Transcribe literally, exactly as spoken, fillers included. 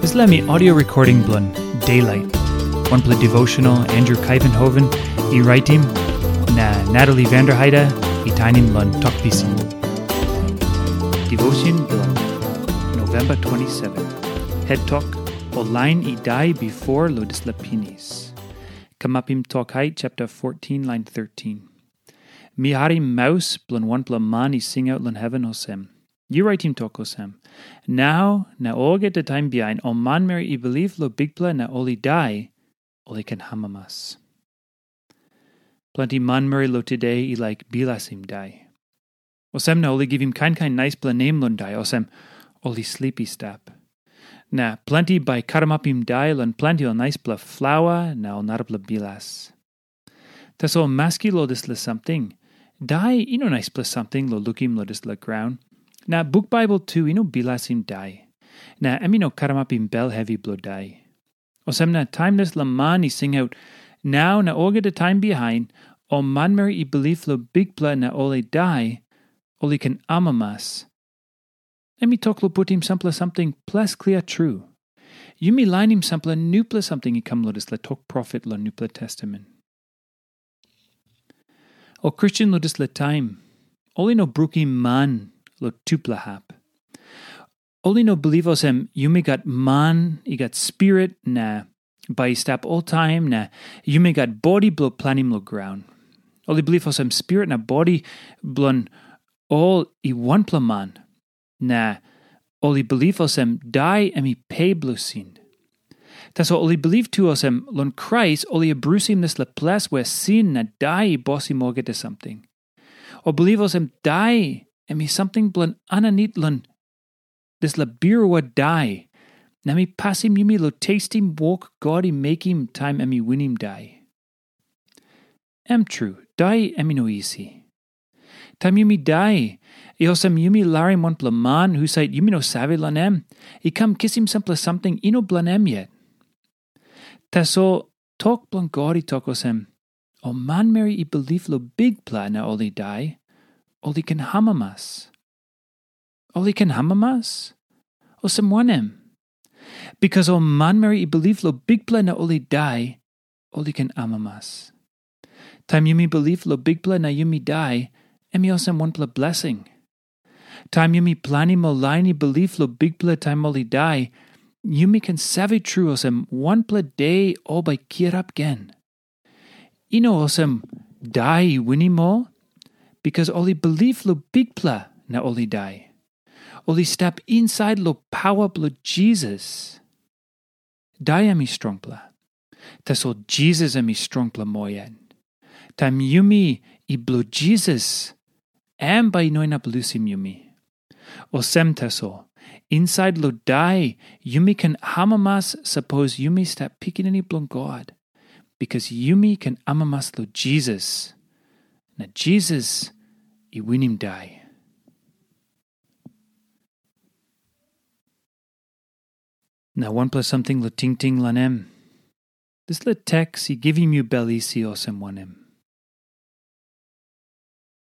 Dispela mi audio recording bilong Daylight, wanpela devotional Andrew Kaivenhoven i raitim, na Natalie Vanderheide i tainim long Tok Pisin. Devotion bilong November twenty-seven. Head Tok, ol lain i dai bifor long dispela pinis. Kamapim Tok Hait chapter fourteen, line thirteen. Mi harim maus bilong wanpela man i singaut long heven olsem, "Yu raitim tok olsem, 'Nau na olgeta taim bihain ol manmeri i bilip long Bikpela na ol i dai, ol i ken amamas.'" Planti manmeri long tude i laik bilasim dai. Olsem na ol i givim kain kain naispela nem long dai, olsem, ol i slip i stap. Na planti bai i karamapim dai long planti ol naispela flaua na ol narapela bilas. Tasol maski long dispela samting, dai i no naispela samting long lukim long dispela graun, na buk Baibel tu i no bilasim dai, na em i no karamapim bel hevi bilong dai. Olsem na taim dispela man i singaut, "Nau na olgeta taim bihain, ol manmeri i bilip long Bikpela na ol i dai, ol i ken amamas," em i tok long putim sampela samting ples klia tru. Yumi lainim sampela nupela samting i kam long dispela tok profet long Nupela Testamen. Ol Kristen long dispela taim, ol i no brukim man long tupela hap. Ol i no bilip olsem yumi gat man i gat spirit na bai i stap oltaim, na yumi gat bodi bilong planim long graun. Ol i bilip olsem spirit na bodi bilong ol i wanpela man, na ol i bilip olsem dai em i pe bilong sin. Tasol ol i bilip tu olsem long Krais ol i abrusim dispela ples we sin na dai i bosim olgeta samting. Ol bilip olsem dai em i samting bilong aninit long dispela birua dai, na mi pasim yumi long testim wok God i mekim taim em i winim dai. Em tru, dai em i no isi. Taim yumi dai, i olsem yumi larim wanpela man husat yumi no save long em, i kam kisim sampela samting i no bilong em yet. Tasol tok bilong God i tok olsem, "Ol manmeri i bilip long Bikpela na ol i dai, ol i ken amamas." Ol i ken amamas? Olsem wanem? Bikas ol manmeri i bilip long Bikpela na ol i dai, ol i ken amamas. Taim yumi bilip long Bikpela na yumi dai, em i olsem wanpela blesing. Taim yumi planim ol lain i bilip long Bikpela taim ol i dai, yumi ken save tru olsem wanpela de ol bai kirap gen. I no olsem dai i winim ol, bikas ol i bilip long Bikpela na ol i dai. Ol i stap insait long pawa bilong Jisas. Dai em i strongpela. Tasol Jisas em i strongpela moa yet. Taim yumi i bilong Jisas, em bai i no inap lusim yumi. Olsem tasol, insait long dai yumi ken amamas sapos yumi stap pikinini bilong God, bikas yumi ken amamas long Jisas, na Jisas i winim dai. Na wanpela samting long tingting long em. Dispela teks i givim yu bel isi olsem wanem?